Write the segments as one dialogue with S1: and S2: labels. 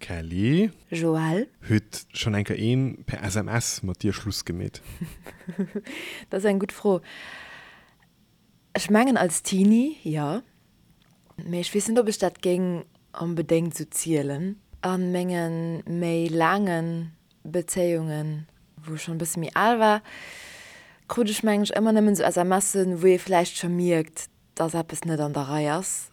S1: Kelly.
S2: Joël.
S1: Huet schonn eng Kéier een per SMS mat dir Schluss gemeet?
S2: Dat ass eng gutt Fro. Ech mengen als Teenie, jo. Mee ech weess net, ob ech dat géing onbedéngt esou zielen. A menge méi laange Bezéiungen, wou ech schonn e bësse méi al war, krut ech mengen ech ëmmer nëmmen esou SMSen, wou ee vläicht scho mierkt, dass eppes net an der Rei ass.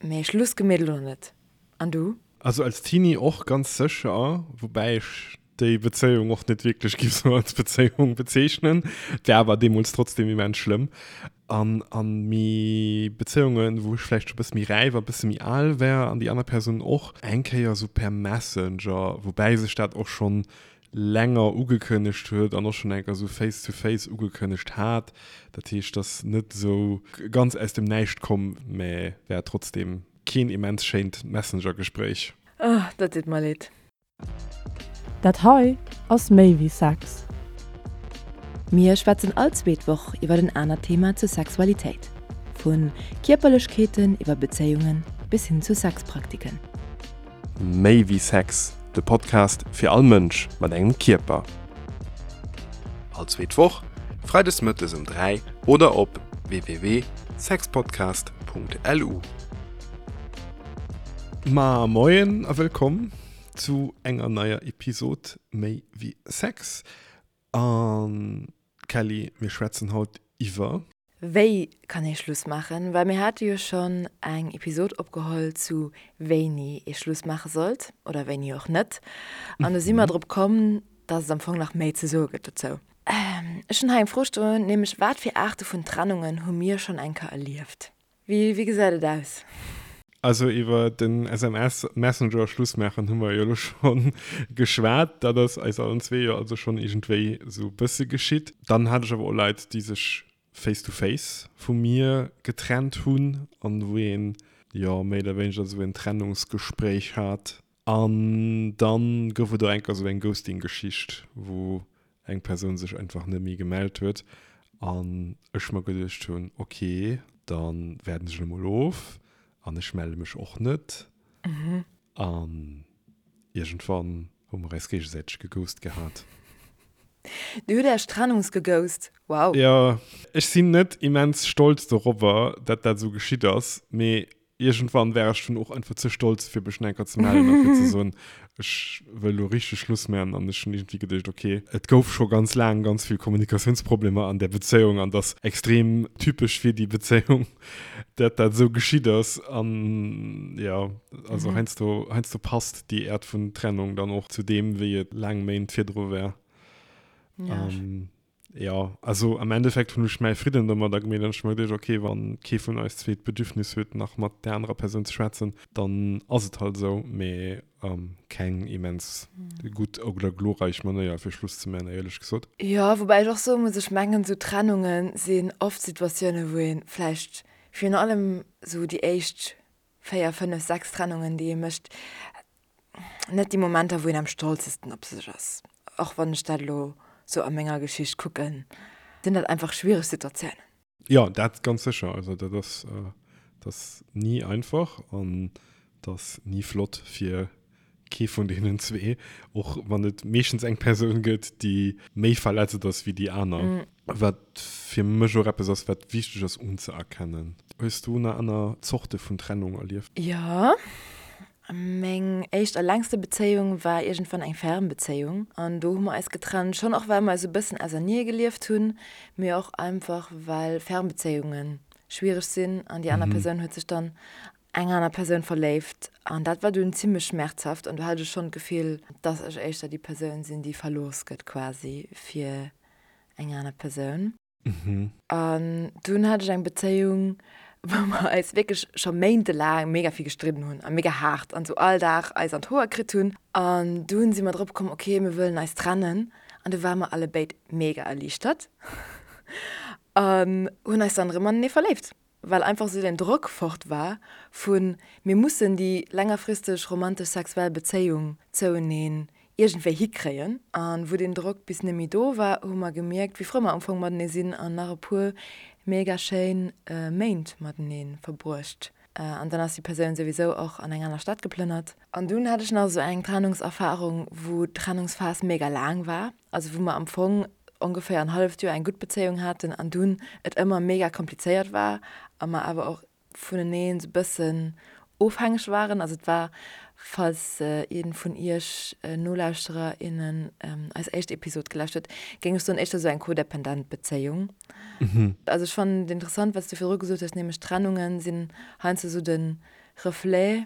S2: Mee Schluss gemeet elo net. An du?
S1: Also als Teenie och ganz sécher, woubäi ech déi Bezéiung och net wierklech giff sou als Bezéiung bezeechnen. Et war awer deemools trotzdem immens schlëmm. An an méi Bezéiungen, wou ech vläicht scho bësse méi räif a bësse méi al war an déi aner Persoun och, eng Kéier sou per Messenger, woubäi sech dat och schonn länger ugekënnegt huet an och schonn eng Kéier sou face to face ugekënnegt hat. Dat heescht, et ass net sou ganz aus dem Näischt komm, mä war trotzdem keen immens schéint Messenger-Gespréich.
S2: Oh, dat deet mer leed.
S3: Dat hei ass méi wéi Sex.
S2: Mir schwätzen all zweet Woch iwwer en anert Thema zur Sexualitéit. Vu Kierperlechkeeten iwwer Bezéiungen bis hin zu Sexpraktiken.
S1: Méi wéi Sex, de Podcast fir all Mënsch mat engem Kierper. All zweet Woch, freides mëttes um 3 oder op www.sexpodcast.lu. Ma moien a wëllkomm zu enger neier Episod Méi wéi Sex. An Kelly, mir schwätzen haut iwwer.
S2: Wéi kann ee Schluss maachen? Well mir hate jo schonn eng Episod opgeholl zu wéini ee Schluss maache sollt oder wéini och net. An do si mer drop komm, dass et am Fong nach méi ze soe gëtt dozou. Ech hunn hei eng Fro stoen, nämlech wat fir Aarte vun Trennungen hu mir schonn eng Kéier erlieft? Wéi gesäit et aus?
S1: Also iwwer den SMS Messenger Schluss maachen hu mer jo elo scho geschwat. Dat ass eis allen zwee jo also schonn iergendwéi esou e bësse geschitt. Dann hat ech awer och Leit, déi sech face to face vu mir getrennt hunn an wou een jo méi oder wéineger esou en Trennungsgespréich hat. An dann gouf et och enker esou eng Ghosting-Geschicht, wou eng Persoun sech einfach net méi gemellt huet an ech mer geduecht hunn, ok, dann waarden ech elo mol of an ech melle mech och net. An iergendwann hu mer eis géigesäiteg geghost gehat.
S2: Dir hutt Äech trennungsgeghost? Wow!
S1: Jo, ech sinn net immens stolz dorobber, dat dat esou geschitt ass, mee Iergendwann war ech dunn och einfach ze stolz, fir mech enker ze mellen a fir ze soen, ech wëll elo richteg Schluss maachen. An ech hunn iergendwéi geduecht, okay, et gouf scho ganz laang ganz vill Kommunikatiounsproblemer an där Bezéiung an dass extrem typesch fir déi Bezéiung, dat dat esou geschitt ass. An jo, also heiansdo, heiansdo passt déi Äert vun Trennung dann och zu deem, wéi et laang Méint virdru war. Jo, also am Endeffekt hunn ech mäi Fridden domadder gemeet an ech hu mer geduecht, okay, wann kee vun eis zwee d'Bedürfnis huet, nach mat där anerer Persoun ze schwätzen, dann ass et halt esou. Mee keng immens gutt oder glorreich Manéier fir Schluss ze man, éierlech gesot.
S2: Jo, woubäi ech och soe muss, ech mengen, esou Trennunge sinn oft Situatioune wou ee vläicht virun allem esou déi éischt 4, 5, 6 Trennungen, déi ee mécht, net déi Momenter, wou een am stolzesten op sech ass. Och wann ech dat elo sou a menger Geschicht kucken, sinn dat einfach schwiereg Situatiounen.
S1: Jo, dat ganz sécher. Also dat ass, dat ass ni einfach an dat ass ni flott fir kee vun deenen zwee, och wann et meeschtens eng Persoun gëtt, déi méi verletzt ass wéi déi aner. Wat fir mech och eppes ass, wat wichteg ass unzëerkennen. Hues du nach aner Zorte vun Trennung erlieft?
S2: Jo, meng éischt a längste Bezéiung war iergendwann eng Fernbezéiung an do hu mer eis getrennt, schonn och well mer eis e bëssen ausernee gelieft hunn, mee och einfach well Fernbezéiunge schwiereg sinn an déi aner Persoun huet sech dann eng aner Persoun verléift an dat war dunn zimlech schmerzhaft an do hat ech schonn d'Gefill, dass ech éischter déi Persoun sinn, déi verlooss gëtt quasi fir eng aner Persoun. An dunn hat ech eng Bezéiung, wou mer eis wierklech scho méintelaang mega vill gestridden hunn a mega haart an sou all Dag eis an d'Hoer kritt hunn. An dunn si mer drop komm, ok, mir wëllen eis trennen. An du ware mer allebéid mega erliichtert an hunn eis dann erëm anenee verléift. Well einfach esou den Drock fort war vu mir mussen déi längerfristeg romantesch sexuell Bezéiung zoueneen iergendwéi hikréien. A wou deen Drock bis net méi do war, hu mer gemierkt, wéi frou mer am Fong matenee sinn an nach e puer mega schéin Méint matenee verbruecht. An dann ass déi Persoun souwisou och an eng aner Stad geplënnert. An dunn hat ech nach esou eng Trennungserfarung, wou d'Trennungsphas mega laang war. Also wou mer am Fong ongeféier en halleft Joer eng gutt Bezéiung haten an dunn et ëmmer mega komplizéiert war a mer awer och vuneneen esou bëssen ofhängeg waren. Also et war, falls een vun iech Nolauschterer, innen eis éischt Episod gelauscht huet, géing ech soen, éischter esou eng codependent Bezéiung. Also ech fannen et interessant, wat s du virdru gesot hues, nämlech Trennungen sinn heiansdo esou de Reflet,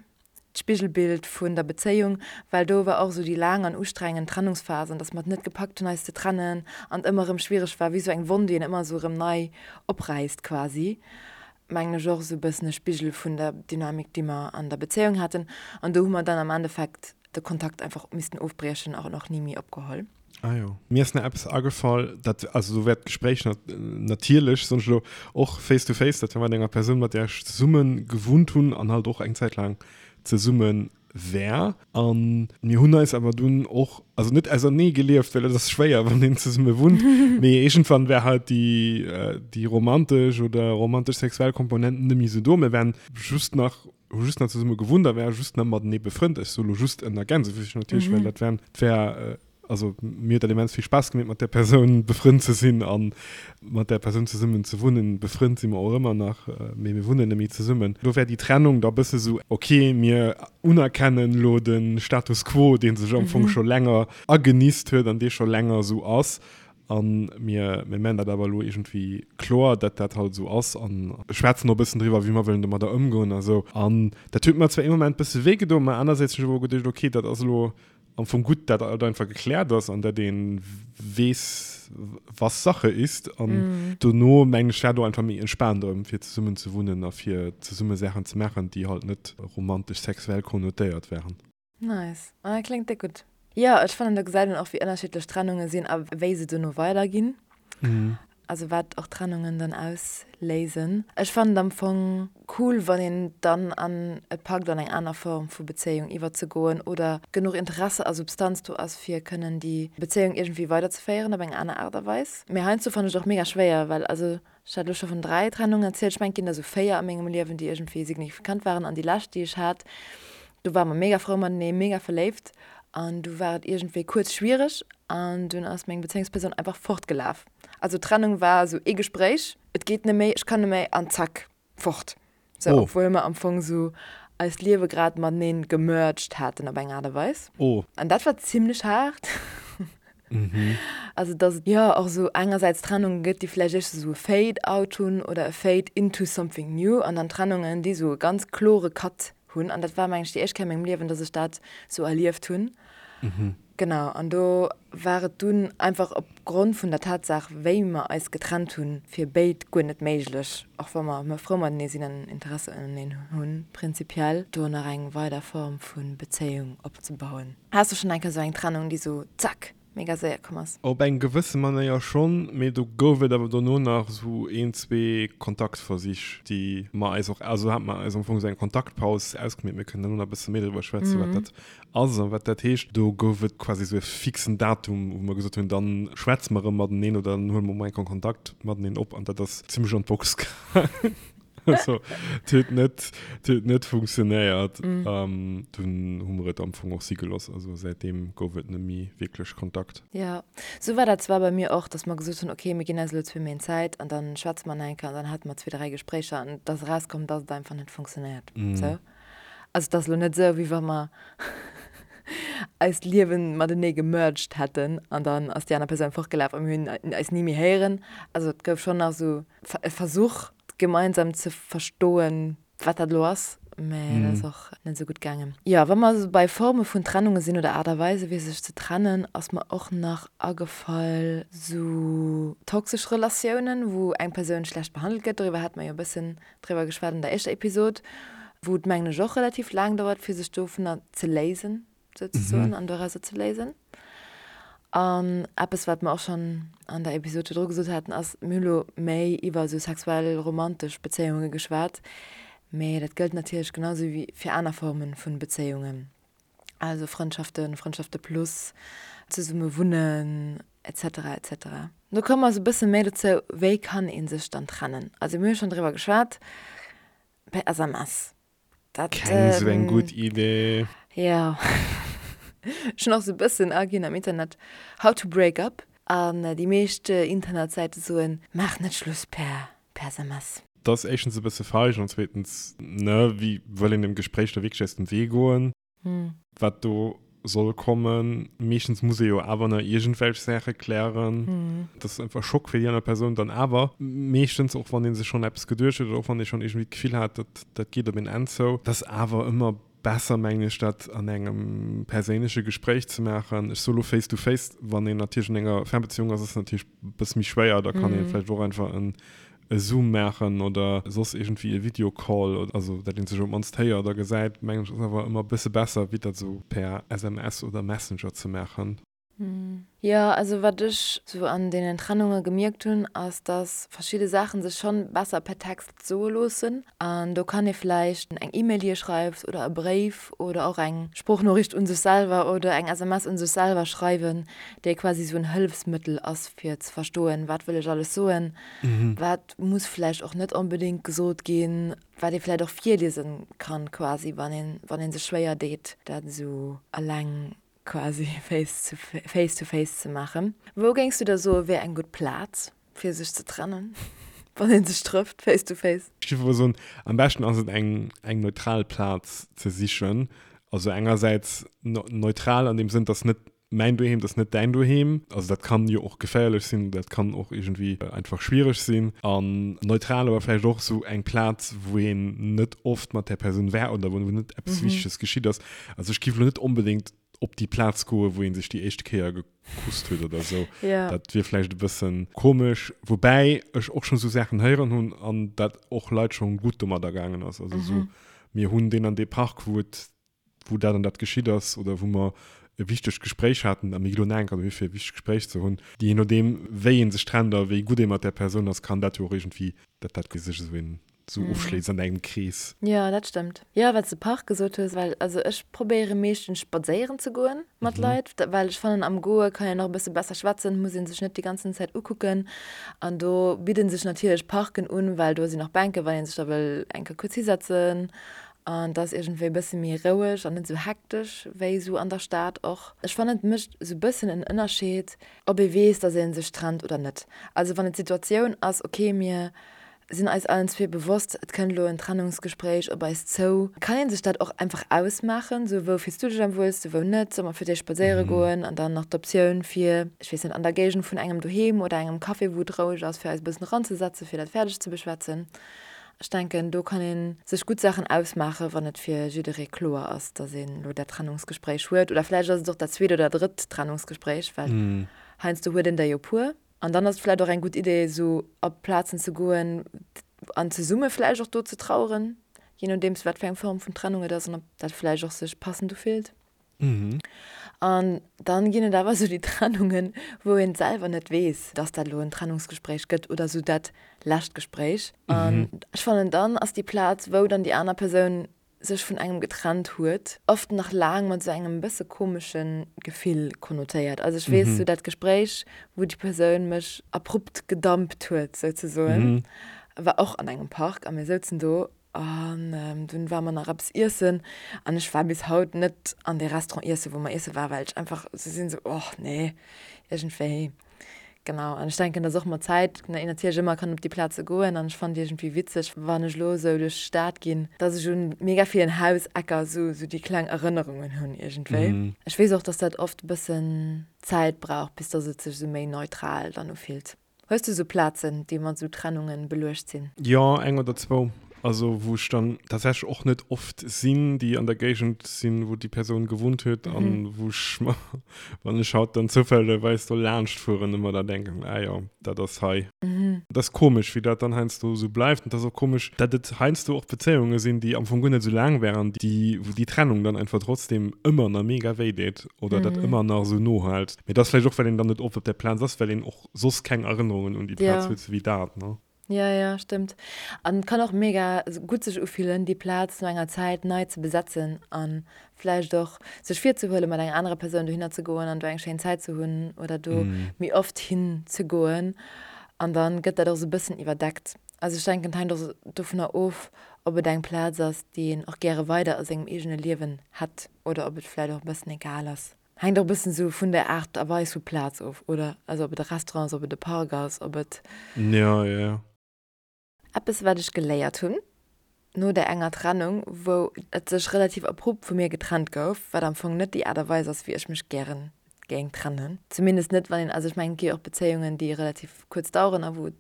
S2: d'Spigelbild vun der Bezéiung, well do war och esou déi laang an ustrengend Trennungsphas an dass mer et net gepackt hunn eis ze trennen an et ëmmer erëm schwiereg war, wéi esou eng Wonn, déi een ëmmer esou erëm nei opräisst quasi, mengen ech och esou e bëssen e Spigel vun der Dynamik, déi mer an der Bezéiung haten an do hu mer dann am Endeffekt de Kontakt einfach missten ofbriechen an och ni méi opgeholl.
S1: Ah jo. Mir ass nach eppes agefall, dat, also do wär d'Gespréich natierlech, soen ech elo, och face to face, dat war mat enger Persoun, mat där ech zesumme gewunnt hunn an halt och eng Zäit laang zesumme war. A mir hunn eis awer dunn och, also net ausernee gelieft, well et ass schwéier, wann een zesumme wunnt, mee iergendwann war halt déi, déi romantesch oder romantesch-sexuell Komponent net méi esou do. Mir waren just nach, hu just nach zesumme gewunnt a ware just nach matenee befrënnt. Ech soe lo just ënner Gänsefüßchen natierlech, well dat waren, et war, also mir huet dat immens vill Spaass gemeet, mat där Persoun befrënnt ze sinn a mat där Persoun zesummen ze wunnen. Befrënnt si mer och ëmmer nach, mee mir wunnen net méi zesummen. Do wär déi Trennung da bësse sou, ok, mir unerkennen elo de Status quo, dee sech am Fong scho länger agenisst huet an dee scho länger esou ass. A mir mir man dat awer elo iergendwéi kloer, datt dat halt esou ass a schwätzen och e bëssen driwwer, wéi mer wëllen domadder ëmgoen a sou. An dat huet mer zwar ee Moment bësse wéi gedoen, mä anersäits hunn ech awer och geduecht, ok, dat ass elo am Fong gutt, dat alt einfach gekläert ass an dat ee weess, was Sache ist. An dono, mengen ech, war do einfach méi entspaant erëm, fir zesummen ze wunnen a fir zesumme Saachen ze maachen, déi halt net romantesch-sexuell konnotéiert waren.
S2: Nice. Ah, kléngt déck gutt. Jo, ech fannen do gesäit een och wéi ënnerschiddlech Trennunge sinn a wéi se dono weiderginn. Also wat och Trennungen dann ausléisen. Ech fannen et am Fong cool, wann een dann an et packt an eng aner Form vu Bezéiung iwwerzegoen oder genuch Interesse a Substanz do ass fir kënnen déi Bezéiung iergendwéi weiderzeféieren op eng aner Aart a Weis. Mee heiansdo fannen ech et och mega schwéier, well also Ech hat elo scho vun 3 Trennungen erzielt. Ech mengen, et ginn der esou 4 a mengem Liewen, déi iergendwéi signifikant waren. An déi lescht, déi ech hat, do ware mer mega frou matenee, mega verléift. An du war et iergendwéi kuerz schwiereg an dunn ass meng Bezéiungspersoun einfach fortgelaf. Also d'Trennung war esou ee Gespréich, et geet net méi, ech kann net méi an zack, fort. Sou, oh. Obwuel mer am Fong sou eist Liewe grad mateneen gemerged haten op eng Aart a Weis.
S1: Oh.
S2: An dat war zimlech haart. Mhm. Also dass et jo och sou engersäits Trennunge gëtt, déi vläicht éischter sou e Fade out hunn oder e Fade into something new an dann Trennungen, déi sou e ganz klore Cut hunn. An dat war meng ech déi éischt Kéier a mengem Liewen, dass ech dat sou erlieft hunn.
S1: Mhm.
S2: Genau, an do war et dunn einfach op Grond vun der Tatsaach, wéi mer eis getrennt hunn, fir béid guer net méiglech, och wa mer frou matenee sinn an Interesse uneneen hunn, prinzipiell do nach eng weider Form vu Bezéiung opzebauen. Has du schonn eng Kéier esou eng Trennung, déi esou zack, mega séier komm ass?
S1: Op eng gewësse Manéier schonn, mee do gouf et awer dono nach esou een, zwee Kontaktversich, déi mer eis och, also hate mer eis am Fong esou eng Kontaktpaus ausgemeet. Mir kënnen dono nach e bësse méi driwwer schwätzen, wat dat ass a wat dat heescht. Do gouf et quasi esou e fixen Datum, wou mer gesot hunn, dann schwätze mer erëm mateneen oder dann huele mer emol eng Kéier Kontakt mateneen op an dat ass zimmlech an d'Box gaangen. Also, et huet net, et huet net funktionéiert. Mm. Dunn hu mer et am Fong och si gelooss. Also säitdeem gouf et net méi wierklech Kontakt.
S2: Jo, sou war dat zwar bei mir och, dass mer gesot hunn, okay, mir ginn eis elo zwee Méint Zäit an dann schwätze mer nach eng Kéier an dann hate mer zwee, dräi Gespréicher an et ass erauskomm, dass et einfach net funktionéiert. Mm. Sou. Also et ass elo net sou, wéi wa mer eist Liewen matenee gemerged hätten an dann ass déi aner Persoun fortgelaf a mir hunn eis ni méi héieren. Also et gouf schonn nach sou e Versuch, gemeinsam ze verstoen, wat dat elo ass, mä dat ass och net esou gutt gaangen. Jo, wa mer esou bei Forme vun Trennunge sinn oder Aart a Weise fir sech ze trennen, ass mer och nach agefall sou toxesch Relatiounen, wou eng Persoun schlecht behandelt gëtt. Doriwwer hate mer jo e bëssen driwwer geschwat an der éischter Episod, wou et mengen ech och relativ laang dauert fir sech dovunner ze léisen souzesoen an dorauser ze léisen. An eppes wat mer och schonn an der Episod virdru gesot haten ass, mir hu lo méi iwwer esou sexuell romantesch Bezéiunge geschwat, mee dat gëllt natierlech genau esou wéi fir aner Forme vu Bezéiungen, also Frëndschaften, Frëndschafte plus, zesumme wunnen, etc etc. Do komme mer esou e bësse méi dozou, wéi kann ee sech dann trennen? Also mir hu schonn driwwer geschwat per SMS. Dat,
S1: Keng sou eng gutt Idee.
S2: Jo. Ech hunn och sou e bëssen aginn am Internet, how to break up, an déi meescht Internetsäite soen, maach net Schluss per per SMS.
S1: Dat ass éischtens e bësse feig an zweetens, ne, wéi wëll een dem Gespréich da wierklech aus dem Wee goen? Wat do soll kommen. Meeschtens muss ee jo awer nach iergendwelch Saache klären. Dat ass einfach Schock fir déi aner Persoun dann awer. Meeschtens, och wann ee sech schonn eppes geduecht huet oder och wann ee schonn iergendwéi d'Gefill hat, dat dat geet op een Enn zou. Dat ass awer ëmmer besser, mengen ech, dat an engem perséinleche Gespréich ze maachen. Ech soe lo face to face, wann een natierlech an enger Fernbeziehung ass, ass et natierlech e bësse méi schwéier. Da kann ee vläicht och einfach en e Zoom maachen oder soss iergendwéi e Videocall, also dat een sech op d'mannst héiert a gesäit, mengen ech ass awer ëmmer e bësse besser wéi dat esou per SMS oder Messenger ze maachen.
S2: Jo, also wat ech sou an deenen Trennunge gemierkt hunn, ass dass verschidde Saachen sech schonn besser per Text soe loossen. An do kann ee vläicht eng E-Mail déi ee schreift oder e Bréif oder och eng Sproochnoriicht un sech selwer oder eng SMS un sech selwer schreiwen, déi quasi sou en Hëllefsmëttel ass fir ze verstoen, wat wëll ech alles soen, wat muss vläicht och net onbedéngt gesot ginn, wat ee vläicht och virliese kann quasi, wann een, wann ee sech schwéier deet, dat esou eleng quasi face to face to face ze maachen. Wou géings du da soe wär eng gutt Plaz, fir sech ze trennen, wann ee sech trëfft face to face?
S1: Ech géif awer soen, am beschten ass et eng, eng neutral Plaz ze sichen. Also engersäits neutral an deem Sënn, dass net mäin Doheem, dat ass net däin Doheem. Also dat kann jo och geféierlech sinn, dat kann och iergendwéi einfach schwiereg sinn. An neutral awer vläicht och esou eng Plaz, wou een net oft mat där Persoun war oder wou net eppes Wichteges geschitt ass. Also ech géif elo net onbedéngt op déi Plaz goen, wou ee sech déi éischte Kéier gekusst huet oder esou. Dat wier vläicht e bësse komesch. Woubäi ech och schonn esou Saachen héieren hunn an dat och Leit schonn gutt domadder gaangen ass. Also esou, mir hunn deen an dee Park, wou et wou dat an dat geschitt ass oder wou mer e wichtegt Gespréich haten, a mir gi lo nach eng Kéier dohi fir e wichtegt Gespréich ze hunn. Jee nodeem wéi ee sech trennt a wéi gutt ee mat där Persoun ass, kann dat jo och iergendwéi, dat dat sech esou een esou ofschléisst an engem Krees.
S2: Jo, dat stëmmt. Jo, wat s de Park gesot hues, well also ech probéiere meeschtens spadséieren ze goen mat Leit, well ech fannen am Goe kann een och e bësse besser schwätzen, muss ee sech net déi ganzen Zäit ukucken an do bidde sech natierlech Parken un, well do sinn och Bänken, wann ee sech da wëll eng Kéier kuerz hisetzen An et ass iergendwéi e bësse méi roueg an net esou hektesch wéi esou an der Stad och. Ech fannen et mécht esou e bëssen en Ënnerscheed, ob ee weess, datt ee sech trennt oder net. Also wann et d'Situatioun ass, ok mir sinn eis allen zwee bewosst, et kënnt elo en Trennungsgespréich op eis zou, kann ee sech dat och einfach ausmaachen, esou wou fills du dech am wuelste, wou net, solle mer fir d'éischt spadséiere goen an dann nach d'Optioun fir, ech weess net, an der Géigend vun engem doheem oder engem Café wou et roueg ass, fir eis e bëssen eranzesetzen, fir dat fäerdeg ze beschwätzen. Ech denken, do kann ee sech gutt Saachen ausmaachen, wann et fir jidderee kloer ass, datt een elo dat Trennungsgespréich huet. Oder vläicht ass et och dat zweet oder drëtt Trennungsgespréich, well heiansdo huet een der jo puer. An dann ass et vläicht och eng gutt Idee, esou op Plazen ze goen an zesumme vläicht och do ze traueren, jee nodeems wat fir eng Form vun Trennung et ass an ob dat vläicht och sech passend ufillt. An dann ginn et awer esou déi Trennungen, wou een selwer net weess, dass dat elo en Trennungsgespréich gëtt oder esou dat lescht Gespréich. An ech fannen, dann ass déi Plaz, wou dann déi aner Persoun sech vun engem getrennt huet, oft nach laang mat esou engem bësse komesche Gefill konnotéiert. Also ech weess, esou dat Gespréich, wou déi Persoun mech abrupt gedumpt huet souzesoen, war och an engem Park a mir souzen do An dunn ware mer nach eppes iessen an ech war bis haut net an dee Restaurant iessen, wou mer iesse waren, well ech einfach esou sinn, esou, och nee, iergendwéi. Genau. An ech denken, dass och mat Zäit een natierlech ëmmer kann op déi Plaze goen an ech fannen et iergendwéi witzeg, wann ech elo esou duerch d'Stad ginn, dass ech un mega villen Hausecker esou esou déi kleng Erënnerungen hunn iergendwéi. Ech weess och, dass dat oft e bëssen Zäit brauch, bis dass et sech esou méi neutral dann ufillt. Hues du sou Plazen, déi mat sou Trennungen beluecht sinn?
S1: Jo, eng oder zwou. Also wou ech dann tatsächlech och net oft sinn, déi an der Géigend sinn, wou déi Persoun gewunnt huet an wou ech mer, wann ech haut dann zoufällegerweis do laanscht fueren, ëmmer da denken, ah jo, dat ass hei. Dat ass komesch, wéi dat dann heiansdo esou bleift. An et ass och komesch, dat et heiansdo och Bezéiunge sinn, déi am Fong guer net esou laang waren, déi, wou déi Trennung dann einfach trotzdem ëmmer nach mega wéi deet oder dat ëmmer nach esou nohält. Mee dat ass vläicht och, well een dann net oft op där Plaz ass, well een och soss keng Erënnerungen un déi Plaz huet, sou wéi dat, ne?
S2: Jo, jo, stëmmt. An et kann och mega gutt sech ufillen, déi Plaz no enger Zäit nei ze besetzen a vläicht och sech virzehuelen, mat enger anerer Persoun dohinner ze goen an do eng schéin Zäit ze hunn oder do méi oft hin ze goen. An dann gëtt dat och sou e bëssen iwwerdeckt. Also ech denken, et hänkt och dovunner of, Ob et eng Plaz ass, déi een och gäre weider a sengem eegene Liewen hätt oder ob et vläicht och e bëssen egal ass. Hänkt och e bëssen esou vun der Aart a Weis vu Plaz of, oder? Also ob et e Restaurant ass, ob et e Park ass, ob et.
S1: Jo, jo, jo.
S2: Eppes wat ech geléiert hunn no där enger Trennung, wou et sech relativ abrupt vu mir getrennt gouf, wat am Fong net déi Aart a Weis ass wéi ech mech gären géing trennen. Zumindest net wann een, also ech mengen et gi jo och Bezéiungen déi relativ kuerz daueren a wou et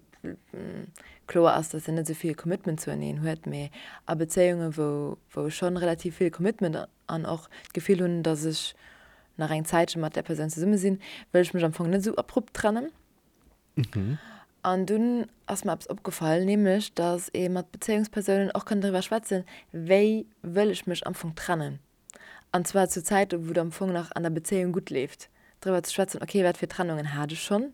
S2: kloer ass, dass een net esou vill Commitment zueneen huet, mee a Bezéiunge wou wou ech schonn relativ vill Commitment an och d'Gefill hunn, dass ech nach eng Zäitche mat där Persoun zesumme sinn, wëll ech mech am Fong net esou abrupt trennen. An dunn ass mer eppes opgefall, nämlech datt ee mat Bezéiungspersounen och kann driwwer schwätzen, wéi wëll ech mech am Fong trennen. An zwar zu Zäite wou et am Fong nach an der Bezéiung gutt leeft, driwwer ze schwätzen, okay, wat fir Trennungen hat ech schonn,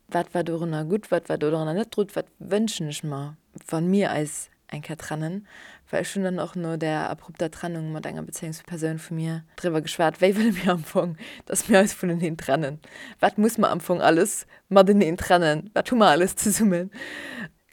S2: wat war dorunner gutt, wat war dorunner net gutt, wat wënschen ech mer, wa mir eis eng Kéier trennen, well ech hunn dann och no där abrupter Trennung mat enger Bezéiungspersoun vu mir driwwer geschwat, wéi wëlle mir am Fong, dass mir eis vuneneen trennen, wat muss mer am Fong alles mateneen trennen, wat hu mer alles zesummen.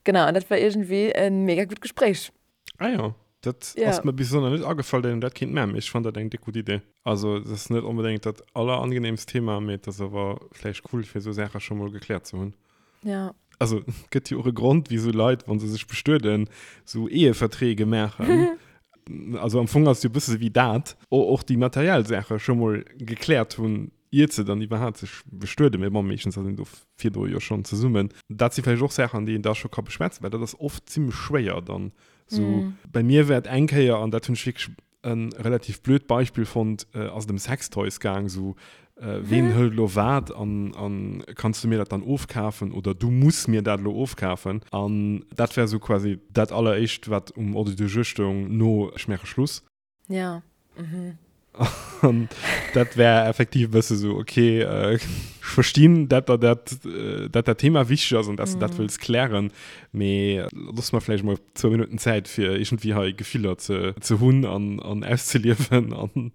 S2: Genau, an dat war iergendwéi e mega gutt Gespréich.
S1: Ah jo, dat ass mer bis elo nach net agefall, datt een dat kéint maachen, mee ech fannen dat eng déck gutt Idee. Also et ass net onbedéngt dat allerangenehmst Thema, mee et ass awer vläicht cool, fir esou Saache scho mol gekläert ze hunn.
S2: Ja.
S1: Also et gëtt jo och e Grond, wisou Leit, wa se sech bestueden, esou Eheverträge maachen. Also am Fong ass et jo e bësse wéi dat, och déi materiell Saache scho mol gekläert hunn, iert se dann iwwerhaapt sech bestueden. Mee bon, meeschtens ass een do virdru jo schonn zesummen. Dat si vläicht och Saachen, déi een da scho ka beschwätzen, well dat ass oft zimmlech schwéier dann. Sou bei mir war et eng Kéier, an dat hunn ech wierklech E relativ blöd Beispill fonnt, ass et ëm Sextoys gaang, sou ween hëlt elo wat an an kanns du mir dat dann ofkafen oder du muss mir dat elo ofkafen. An dat war sou quasi dat alleréischt wat um Ordre du jour stoung no ech maache Schluss.
S2: Ja, mhm.
S1: An dat war effektiv e bësse sou, okay, ech verstinn, dat der dat, dat dat Thema wichteg ass an dass du dat wëlls klären, Mee looss mer vläicht mol zwou Minutten Zäit fir iergendwéi hei Gefiller ze ze hunn an an auszeliewen an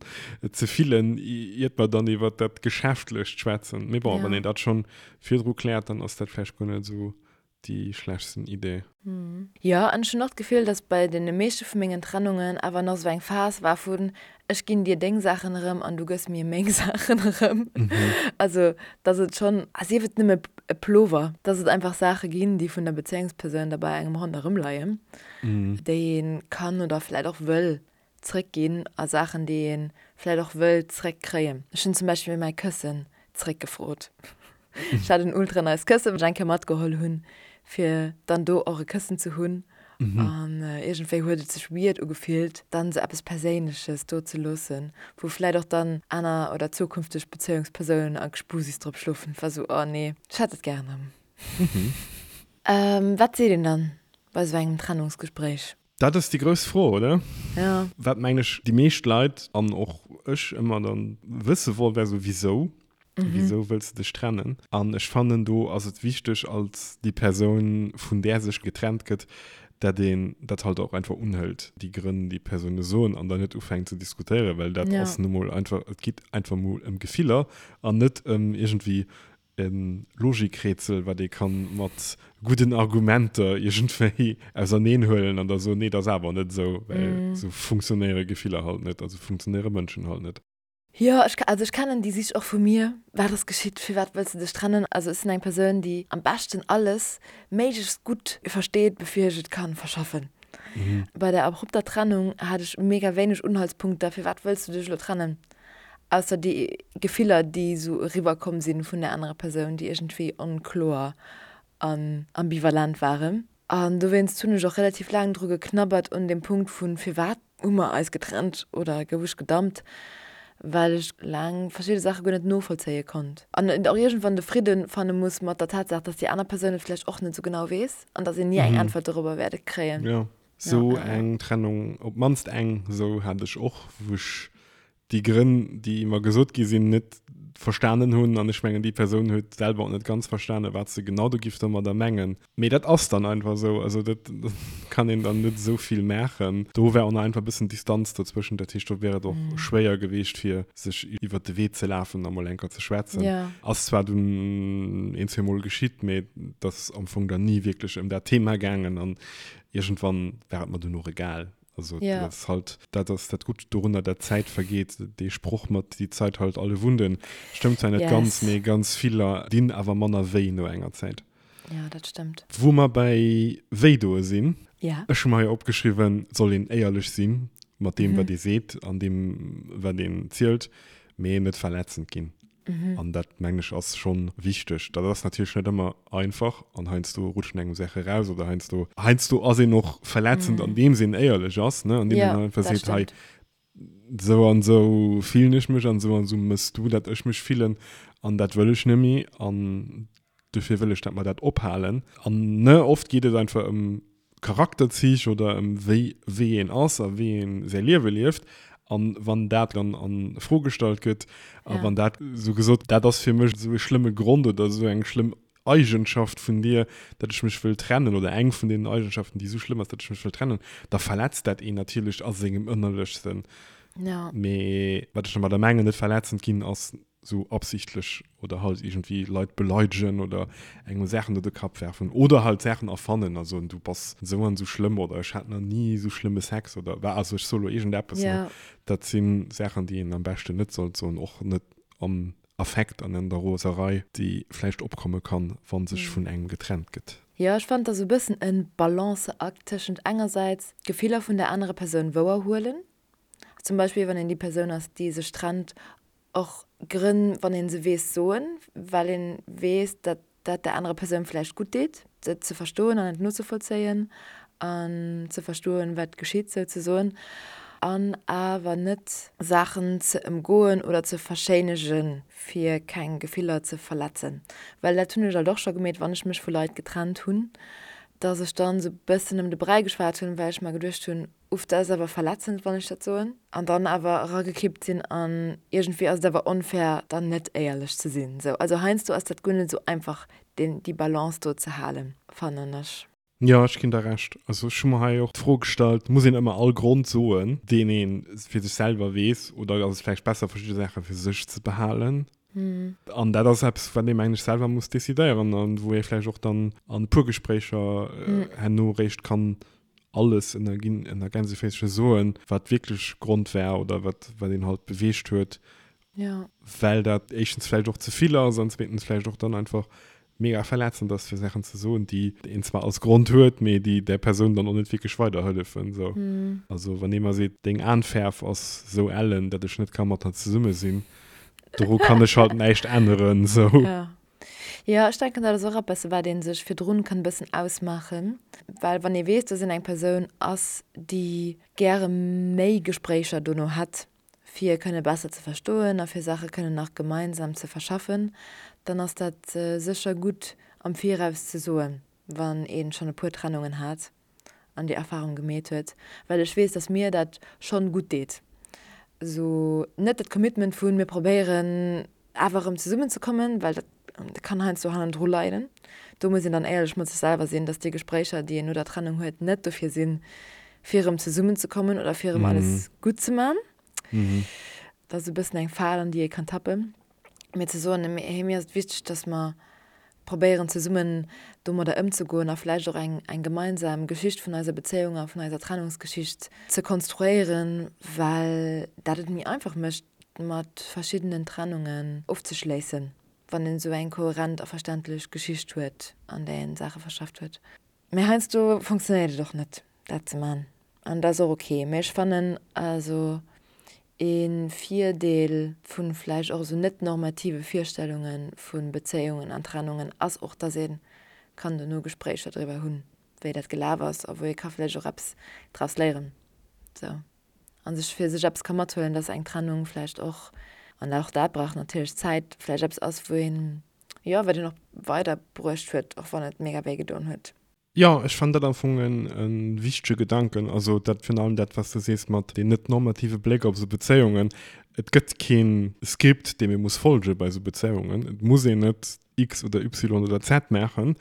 S1: ze fillen, iert mer dann iwwer dat Geschäftlecht schwätzen. Mee bon, wann een dat schonn virdru kläert, dann ass dat vläicht guer net esou déi schlechtsten Idee.
S2: Jo, an ech hunn och d'Gefill, dass bei deene meeschte vu mengen Trennungen awer nach esou eng Phas war vun, ech ginn dir deng Saachen erëm an du gëss mir meng Saachen erëm. Also, dass et schonn, a sief et nëmme e Plover, dass et einfach Saache ginn, déi vun der Bezéiungspersoun da bei engem ronderëm leien, déi ee kann oder vläicht och wëll zréckginn a Saachen, déi ee vläicht och wëll zréckkréien. Ech hunn zum Beispill mäi Këssen zréckgefrot. Ech hat en ultra nice Këssen, wat ech eng Kéier matgeholl hunn, fir dann do och e Këssen ze hunn. An iergendwéi huet et sech weird ugefillt, dann esou eppes Perséinleches do ze loossen, wou vläit och dann aner oder zukünfteg Bezéiungspersounen a Gespusis drop schlofen. Et war esou, oh nee, ech hätt et gären erëm. Wat seet een dann bei esou engem Trennungsgespréich?
S1: Dat ass déi grouss Fro, oder?
S2: Ja.
S1: Wat, mengen ech, déi meescht Leit an och ech ëmmer dann wësse wollt, wär esou, Wisou? Wisou wëlls de dech trennen? An ech fannen, do ass et wichteg, als déi Persoun, vun där sech getrennt gëtt, dat een dat halt och einfach unhëlt, déi Grënn, déi d'Persoune soen, an dann net ufänkt ze diskutéieren, well dat ass nu mol einfach, et geet einfach mol ëm Gefiller an net ëm iergendwéi e Logikrätsel, wat ee kann mat gudden Argumenter iergendwéi auserneen huelen an da soen, nee, dat ass awer net esou, well esou funktionéiere Gefiller halt net, esou funktionéiere Mënschen halt net.
S2: Jo, ech, also ech kennen déi Sich och vu mir. Wat ass geschitt? Firwat wëlls de dech trennen? Also ech sinn eng Persoun, déi am beschten alles méiglechst gutt versteet, bevir ech et kann verschaffen. Bei der abrupter Trennung hat ech mega wéineg Unhaltspunkter, firwat wëlls du dech elo trennen? Ausser déi Gefiller, déi esou eriwwer komm sinn vun der anerer Persoun, déi iergendwéi onkloer an ambivalent waren. An dowéinst hunn ech och relativ laang dru geknabbert un deem Punkt vun, firwat hu mer eis getrennt oder gouf ech gedumpt, well ech laang verschidde Saache guer net novollzéie konnt. An och iergendwann de Fridde fanne muss mat der Tatsaach, dass déi aner Persoun et vläicht och net esou genau weess an dass een ni eng Äntwert dorobber wäert kréien.
S1: Jo, esou eng Trennung, op d'mannst eng esou hat ech och, wou ech déi Grënn, déi mer gesot gi sinn, net verstanen hunn. An ech mengen, déi Persoun huet selwer och net ganz verstanen, wat se genau do giff domadder mengen. Mee dat ass dann einfach esou. Also dat kann een dann net esou vill maachen. Do war och nach einfach e bëssen Distanz dozwëschent. Dat heescht, do wär et och schwéier geweecht, fir sech iwwert de Wee ze lafen a mol eng Kéier ze schwätzen. Ass zwar dunn een, zweemol geschitt, mee et ass am Fong dann ni wierklech ëm dat Thema gaangen. An. Iergendwann war et mer dunn och egal. Also ja. dat ass halt, dat ass dat Gutt dorunner, dat d'Zäit vergeet. Dee Sproch mat die Zeit heilt alle Wunden stëmmt zwar net yes. ganz, mee ganz viller dinn awer manner wéi no enger Zäit.
S2: Ja, dat stëmmt.
S1: Wou mer bäi wéidoe sinn,
S2: ja.
S1: ech hu mer hei opgeschriwwen, soll een éierlech sinn mat deem, mhm. wat ee seet an deem, wat een zielt, mee net verletzend ginn. Mhm. An dat mengen ech ass schonn wichteg. Dat ass natierlech net ëmmer einfach an heiansdo rutschen engem Saache raus oder heiansdo heiansdo ass een och verletzend, mhm. andeems een éierlech ass, ne? Andeem ja, een einfach seet, hei sou an sou fillen ech mech an sou an sou mëss du, dat ech mech fillen an dat wëll ech net méi an dofir wëll ech, dat mer dat ophalen. An ne oft geet et einfach ëm Charakterzich oder ëm wéi wéi een ass a wéi een säi Liewe lieft. An wann dat dann a Fro gestallt gëtt a ja. wann dat sou gesot, dat ass fir mech esou e schlëmme Grond oder esou eng schlëmm Eigenschaft vun dir, datt ech mech wëll trennen oder eng vun deenen Eigenschaften, déi esou schlëmm ass, datt ech mech wëll trennen, da verletzt dat een natierlech a sengem Ënnerlechsten.
S2: Ja.
S1: Mee wat ech domadder mengen, net verletzend ginn, ass sou absichtlech oder halt iergendwéi Leit beleidegen oder engem Saachen no de Kapp werfen oder halt Saachen erfannen a soen, du bass esou an esou schlëmm oder ech hat nach ni esou schlëmme Sex oder wa, also ech soe lo iergendeppes, ne? Dat si Saachen, déi een am beschten net sollt soen, och net am Affekt an an der Roserei, déi vläicht opkomme kann, wa sech vun engem getrennt gëtt.
S2: Jo, ech fannen, et ass e bëssen e Balanceakt tëschent engersäits d'Gefiller vun der anerer Persoun wouerhuelen, zum Beispill wann een déi Persoun ass, déi sech trennt, och Grënn, wann ee se weess, soen, well ee weess, datt dat der anerer Persoun vläicht gutt deet, et ze verstoen an et nozevollzéien an ze verstoen, wat geschitt souzesoen, an awer net Saachen ze ëmgoen oder ze verschéinegen, fir keng Gefiller ze verletzen. Well dat hunn ech alt och scho gemeet, wann ech mech vu Leit getrennt hunn, datt ech dann esou e bëssen ëm de Bräi geschwat hunn, well ech mer geduecht hunn, Uff, dat ass awer verletzend, wann ech dat soen. An dann awer eragekippt sinn an iergendwéi ass et awer onfair, dann net éierlech ze sinn. Sou, also heiansdo ass dat guer net esou einfach, deen, déi Balance do ze halen, fannen ech.
S1: Jo, ech ginn der Recht. Also ech hu mer hei och d'Fro gestallt, muss een ëmmer all Grond soen, deen ee fir sech selwer weess, oder ass et vläicht besser, verschidde Saache fir sech ze behalen? An dat ass eppes, wat ee mengen ech selwer muss decidéieren an wou ee vläicht och dann an e puer Gespréicher herno eréischt kann alles ënner ginn ënner Gänseféische soen, wat wierklech Grond war oder wat wat een halt beweegt huet,
S2: ja.
S1: well dat éischtens vläicht och ze vill ass an zweetens vläicht och dann einfach mega verletzend ass fir Saachen ze soen, déi een zwar als Grond huet, mee déi där Persoun dann och net wierklech weiderhëllefen sou.
S2: Mm.
S1: Also wann ee mer seet, deng Aanfäerf ass sou ellen, datt ech net ka mat der zesumme sinn, doru kann ech halt näischt änneren sou.
S2: Ja. Jo, ech denken, dat ass och eppes, wat ee sech virdrun kann e bëssen ausmaachen, well wann ee weess, dass een eng Persoun ass, déi gäre méi Gespréicher dono hätt, fir kënne besser ze verstoen a fir Saache kënnen nach gemeinsam ze verschaffen, dann ass dat sécher gutt am Viraus ze soen, wann ee schonn e puer Trennungen hat. an déi Erfahrung gemeet huet, well ech weess, dass mir dat schonn gutt deet. Esou net dat Commitment vun mir probéieren awer erëm zesummen ze kommen, well dat kann heiansdo hannendru leiden. Do muss een dann éierlech mat sech selwer sinn, dass déi Gespréicher, déi een no der Trennung huet, net dofir sinn, fir erëm zesummen ze kommen oder fir erëm alles gutt ze man. Dat ass e bëssen eng Fal, an déi ee kann tappen. Mee ze soen, hey, mir ass et wichteg, dass mer probéieren zesummen domadder ëmzegoen a vläicht och eng, eng gemeinsam Geschicht vun eiser Bezéiung a vun eiser Trennungsgeschicht ze konstruéieren, well dat et méi einfach mécht, mat verschiddenen Trennungen ofzeschléissen, wann een esou eng kohärent a verständlech Geschicht huet, an där een Saache verschafft huet. Mee heiansdo funktionéiert et och net, dat ze man. An dat ass och ok. Mee ech fannen also ee Virdeel vu vläicht och esou net normative Virstellunge vu Bezéiungen an Trennungen ass och, dass ee kann dono Gespréicher driwwer hunn, wéi dat gelaf ass a wou ee ka vläicht och eppes draus léieren. Sou. A sech fir sech eppes ka mathuelen, dass eng Trennung vläicht och, an och dat brauch natierlech Zäit, vläicht eppes ass, wou een Jo, wat een och weider bruecht huet, och wann et mega wéi gedoen huet.
S1: Jo, ech fannen dat am Fong en wichtege Gedanken. Also dat virun allem dat, wat s de sees mat deen net normative Bléck op esou Bezéiungen. Et gëtt keen Skript, deem ee muss folge bei esou Bezéiungen. Et muss een net X oder Y oder Z maachen,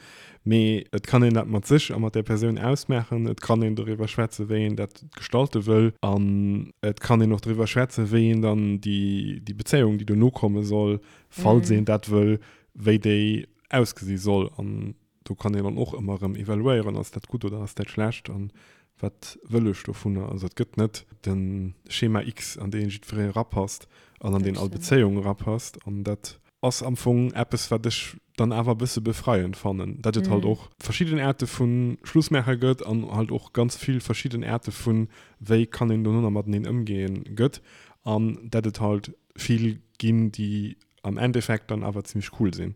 S1: mee et kann een dat mat sech a mat där Persoun ausmaachen. Et kann een doriwwer schwätzen, wéi een dat gestalte wëll. An et kann een och doriwwer schwätzen, wéi een dann déi Bezéiung, déi dono komme soll, falls een dat wëll, wéi déi ausgesi soll. An. do kann een dann och ëmmer erëm evaluéieren, ass dat gutt oder ass dat schlecht an wat wëll ech dovunner. Also et gëtt net de Schema X, an dee jiddweree erapasst an an deen all Bezéiung erapasst. An dat ass am Fong eppes, wat ech dann awer e bësse befreiend fannen, datt et halt och verschidden Aarte vu Schlussmaache gëtt an halt och ganz vill verschidden Aarte vu wéi kann een dono nach mateneen ëmgeen gëtt an datt et halt vill ginn, déi am Endeffekt dann awer zimmlech cool sinn.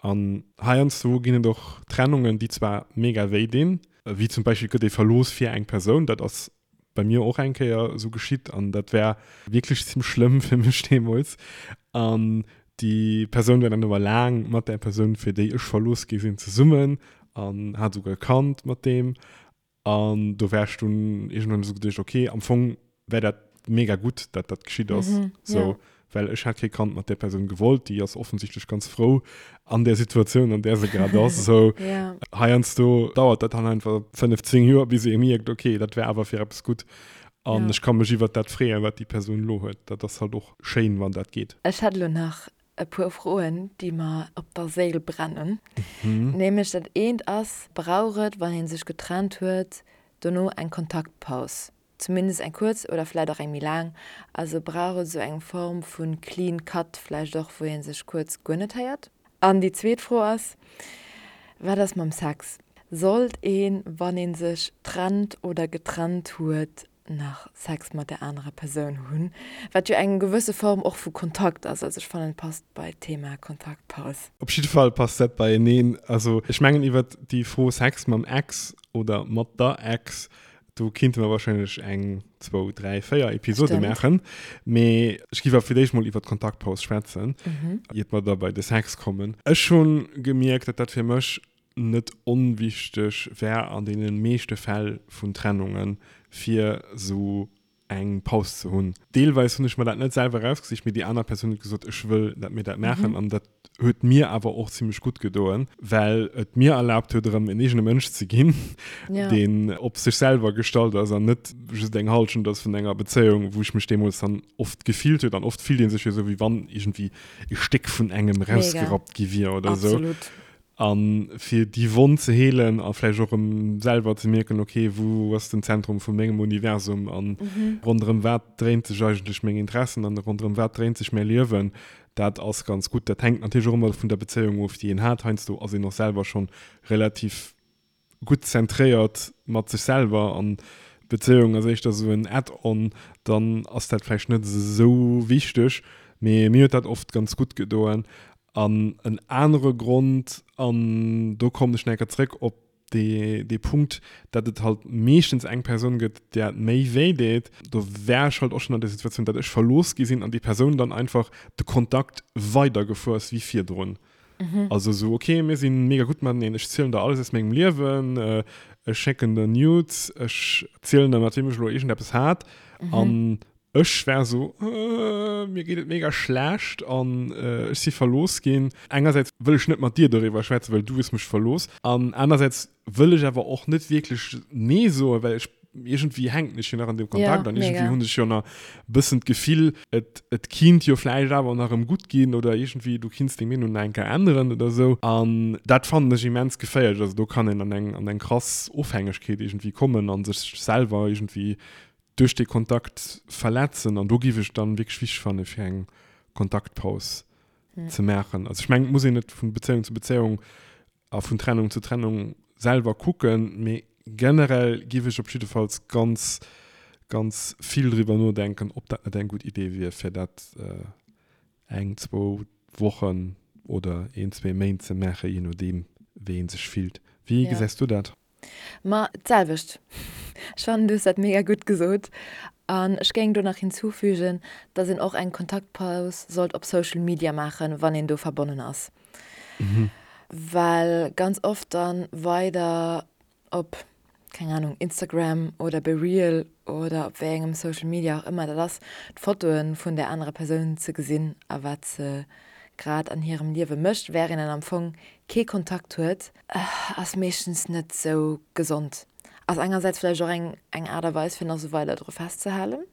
S1: An heiansdo ginn et och Trennungen, déi zwar mega wéi dinn, wéi zum Beispill gëtt ee verlooss fir eng Persoun, dat ass bei mir och eng Kéier esou geschitt an dat war wierklech zimmlech schlëmm fir mech deemools. An déi Persoun war dann awer laang mat där Persoun, fir déi ech verlooss gi sinn, zesummen an hat esouguer e Kand mat deem. An do war ech dunn iergendwann esou geduecht, okay, am Fong wär dat mega gutt, dat dat geschitt ass. Mhm, so, ja. Well ech hätt kee Kand mat där Persoun gewollt, déi ass offensichtlech ganz frou an där Situatioun, an där se grad ass. So, ja. Heiansdo dauert dat dann einfach 15 Joer, bis ee mierkt, okay, dat wär awer fir eppes gutt. An ja. ech ka mech iwwert dat freeën, wat déi Persoun elo huet. Dat ass halt och schéin, wann dat geet.
S2: Ech hätt elo nach e puer Froen, déi mer op der Séil brennen. Nämlech dat eent ass, Brauch et, wann ee sech getrennt huet, dono eng Kontaktpaus? Zumindest eng kuerz oder vläicht och eng méi laang. Also brauch et esou eng Form vu clean cut vläicht och, wou ee sech kuerz guer net héiert? An déi zweet Fro ass, Wat ass mam Sex? Sollt een, wann ee sech trennt oder getrennt huet, nach Sex mat der anerer Persoun hunn, wat jo eng gewësse Form och vu Kontakt ass. Also ech fannen et passt bei d'Thema Kontaktpaus.
S1: Op jidde Fall passt dat beieneen. Also ech mengen iwwert déi Fro Sex mam Ex oder mat der Ex, do kinnte mer wahrscheinlech eng, zwou, dräi, véier Episode maachen. Mee ech giff awer fir d'éischt mol iwwert d'Kontaktpaus schwätzen, iert mer da bei de Sex kommen. Ech hunn gemierkt, datt dat fir mech net onwichteg wär an deene meeschte Fäll vun Trennungen, fir esou eng Paus ze hunn. Deelweis hunn ech mer dat net selwer erausgesicht, mee déi aner Persoun huet gesot, ech wëll, dat mir dat maachen. An dat huet mir awer och zimmlech gutt gedoen, well et mir erlaabt huet, erëm en eegene Mënsch ze ginn, deen op sech selwer gestallt ass an net just eng Hallschent ass vun enger Bezéiung, wou ech mech deemools dann oft gefillt huet. An oft fillt ee sech jo esou, wéi wann iergendwéi e Stéck vun engem erausgerappt gi wier oder esou.
S2: Absolut.
S1: A fir déi Wonn ze heelen a vläicht och erëm selwer ze mierken, ok, wou ass den Zentrum vu mengem Universum a ronderëm wat dréint sech eigentlech meng Interessen an ronderëm wat dréint sech mäi Liewen, dat ass ganz gutt. Dat hänkt natierlech och ëmmer vun der Bezéiung of, déi een hat. Heiansdo ass een och selwer schonn relativ gutt zentréiert mat sech selwer an d'Bezéiung ass éischter esou en Add-on, dann ass dat vläicht net esou wichteg. Mee mir huet dat oft ganz gutt gedoen. An en anere Grond, an do kommen ech nach eng Kéier zréck op dee, dee Punkt, datt et halt meeschtens eng Persoun gëtt, där et méi wéi deet, do war ech halt och schonn an der Situatioun, datt ech verlooss gi sinn an déi Persoun dann einfach de Kontakt weidergefuer ass wéi virdrun. Also esou, ok, mir si mega gutt mateneen, ech zielen der alles aus mengem Liewen, ech schécken der Nudes, ech zielen der, mat weem ech elo iergendeppes hat an Ech war esou, Mir geet et mega schlecht an ech si verlooss ginn. Engersäits wëll ech net mat dir doriwwer schwätzen, well du hues mech verlooss. An anersäits wëll ech awer och net wierklech Nee soen, well ech iergendwéi hänken ech jo nach an deem Kontakt an iergendwéi hunn ech jo nach e bëssen d'Gefill, et et kinnt jo vläicht awer nach erëm gutt ginn oder iergendwéi du kinns deng Meenung nach eng Kéier änneren oder esou. An dat fannen ech immens geféierlech. Also do kann een an eng an eng krass Ofhängegkeet iergendwéi kommen a sech selwer iergendwéi duerch dee Kontakt verletzen an do giff ech dann wierklech wichteg fannen fir eng Kontaktpaus ze maachen. Also ech mengen et muss een et vun Bezéiung zu Bezéiung a vun Trennung zu Trennung selwer kucken, mee generell giff ech op jiddefalls ganz ganz vill driwwer nodenken ob dat net eng gutt Idee wier fir dat eng, zwou Wochen oder een, zwee Méint ze maachen, je nodeem wéi een sech fillt. Wéi gesäis du dat?
S2: Ma d'selwecht. Ech fannen, du hues dat mega gutt gesot. An ech géing do nach hinzufügen, dass een och eng Kontaktpaus sollt op Social Media maachen, wann een do verbonnen ass. Well ganz oft dann weider op, keng Ahnung, Instagram oder bei Reel oder op wéi engem Social Media och ëmmer dat ass, d'Fotoe vun där anerer Persoun ze gesinn a wat se grad an hirem Liewe mécht, wärend een am Fong kee Kontakt huet, ass meeschtens net sou gesond. Ass engersäits vläicht och eng eng Aart a Weis fir nach sou weider dru festzehalen.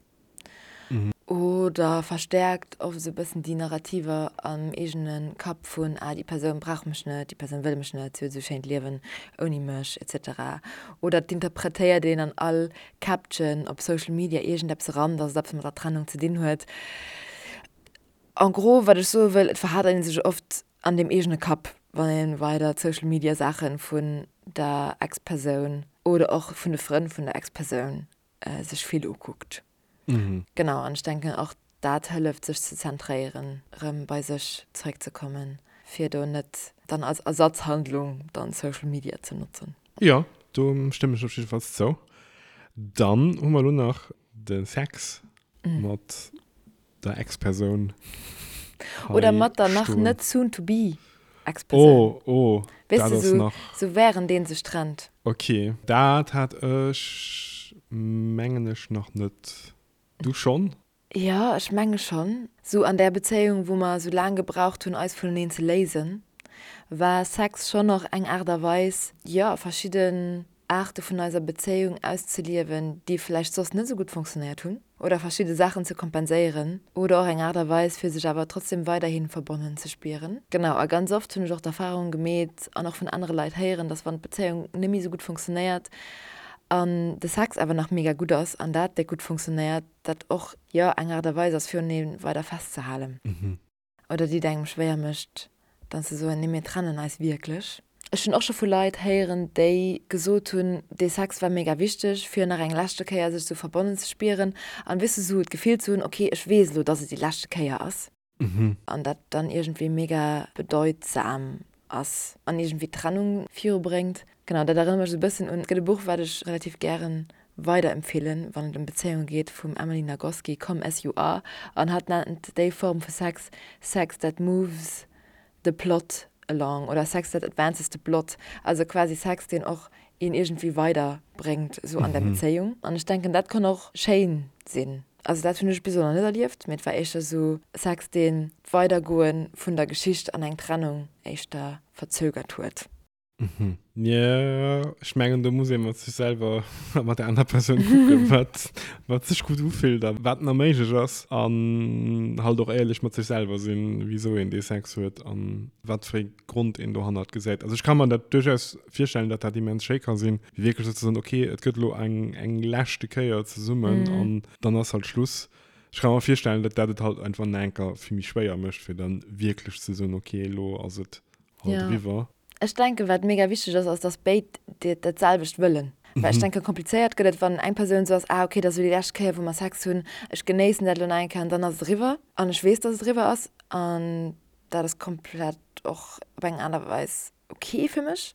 S2: Oder verstäerkt oft esou e bëssen déi Narrativer am eegene Kapp vun, ah déi Persoun brauch mech net, déi Persoun wëll mech net, si huet esou schéint Liewen ouni mech, etc. Oder et interpretéiert een an all Caption op Social Media iergendeppes eran, dass et eppes mat der Trennung ze dinn huet. En gros, wat ech soe wëll, et verhadert ee sech oft an deem eegene Kapp, wann ee weider d'Social Media Saache vun der Ex-Persoun oder och vun de Frënn vun der Ex-Persoun sech vill ukuckt. Genau, an ech denken och dat hëlleft sech ze zentréieren, rëm bei sech zeréckzekommen, fir do net dann als Ersatzhandlung dann Social Media ze notzen.
S1: Jo, do stëmmen ech op jiddefalls zou. Dann hu mer elo nach de Sex mat der Ex-Persoun
S2: Oder mat der nach net soon to be Ex-Persoun.
S1: Oh, oh,
S2: dat ass nach. Sou während een sech trennt.
S1: Ok, dat hat ech mengen ech nach net. Du schonn?
S2: Jo, ech menge schonn. Sou an där Bezéiung, wou mer sou laang gebraucht hunn, eis vuneneen ze léisen, war Sex schonn och eng Aart a Weis, jo, verschidden Aarte vun eiser Bezéiung auszeliewen, déi vläicht soss net esou gutt fonctionnéiert hunn, oder verschidde Saachen ze kompenséieren oder och eng Aart a Weis, fir sech awer trotzdem weiderhi verbonnen ze spieren. Genau, a ganz oft hunn ech och d'Erfahrung gemeet an och vun anere Leit héieren, dass wann d'Bezéiung net méi esou gutt fonctionnéiert an de Sex awer nach mega gutt ass an dat déck gutt fonctionnéiert, dat och, jo, eng Aart a Weis ass, fir uneen weider festzehalen. Oder déi et engem schwéier mécht, dann ze soen, nee mir trennen eis wierklech. Ech hunn och scho vu Leit héieren, déi gesot hunn, dee Sex war mega wichteg, fir nach eng leschte Kéier sech esou verbonnen ze spieren an, weess de, esou d'Gefill ze hunn, okay, ech weess elo, dass et déi leschte Kéier ass. An dat dann iergendwéi mega bedeutsam ass an iergendwéi d'Trennung virubréngt. Genau, dat erënnert mech esou e bëssen un, et gëtt e Buch, wat ech relativ gären weiderempfeelen, wann et ëm Bezéiunge geet, vum Emily Nagoski, Come As You Are, an hatt nennt déi Form vu Sex Sex that moves the plot along oder Sex that advances the plot, also quasi Sex, deen och een iergendwéi weiderbréngt esou an der Bezéiung. An ech denken, dat kann och schéin sinn. Also dat hunn ech bis elo nach net erlieft, mee et war éischter esou Sex, deen d'Weidergoe vun der Geschicht an eng Trennung éischter verzögert huet.
S1: Mhm. Jo, ech mengen do muss ee mat sech selwer a mat der aner Persoun kucken, wat, wat sech gutt ufillt a wat nach méiglech ass. An halt och éierlech mat sech selwer sinn, wisou een dee Sex huet an wat fir ee Grond een dohannert gesäit. Also ech ka mer dat duerchaus virstellen, datt dat immens schéi ka sinn, wéi wierklech esou ze soen, okay, et gëtt elo eng, eng leschte Kéier zesummen an dann ass halt Schluss. Ech ka mer virstellen, datt dat et halt einfach nach eng Kéier vill méi schwéier mécht, fir dann wierklech ze soen, okay, elo ass et halt eriwwer.
S2: Ech denken, wat mega wichteg ass, ass, dass béid dat selwecht wëllen. Well ech denken, komplizéiert gëtt et, wann eng Persoun esou ass, ah okay, dat ass elo déi lescht Kéier, wou mer Sex hunn, ech genéissen dat elo nach eng Kéier an dann ass et eriwwer an ech weess, dass et eriwwer ass an dat ass komplett och op eng aner Weis ok fir mech.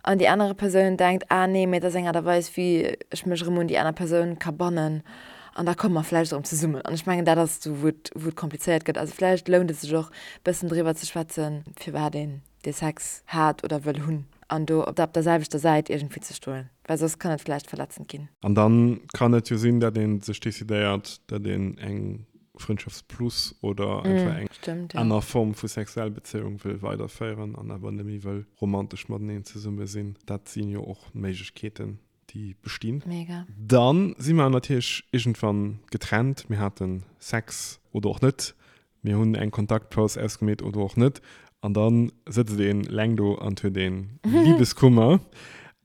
S2: An déi anere Persoun denkt, ah nee, mee dat ass eng Aart a Weis, wéi ech mech erëm un déi aner Persoun ka bannen an da komme mer vläicht erëm zesummen. An ech mengen, dat ass do, wou et, wou et komplizéiert gëtt. Also vläicht lount et sech och, e bëssen driwwer ze schwätzen, firwat een dee Sex hat oder wëll hunn an do op der selwechter Säit iergendwéi ze stoen, well soss kann et vläicht verletzend ginn.
S1: An dann kann et jo sinn, datt ee sech decidéiert, datt een eng Frëndschaftsplus oder einfach eng
S2: Stimmt, ja.
S1: aner Form vu sexuell Bezéiung wëll weiderféieren an awer net méi wëll romantesch mateneen zesumme sinn. Dat si jo och Méiglechkeeten, déi bestinn.
S2: Mega.
S1: Dann si mer natierlech iergendwann getrennt, mir hate Sex oder och net, Mir hunn eng Kontaktpaus ausgemeet oder och net. An da sëtzt een leng do an huet een Liebeskummer.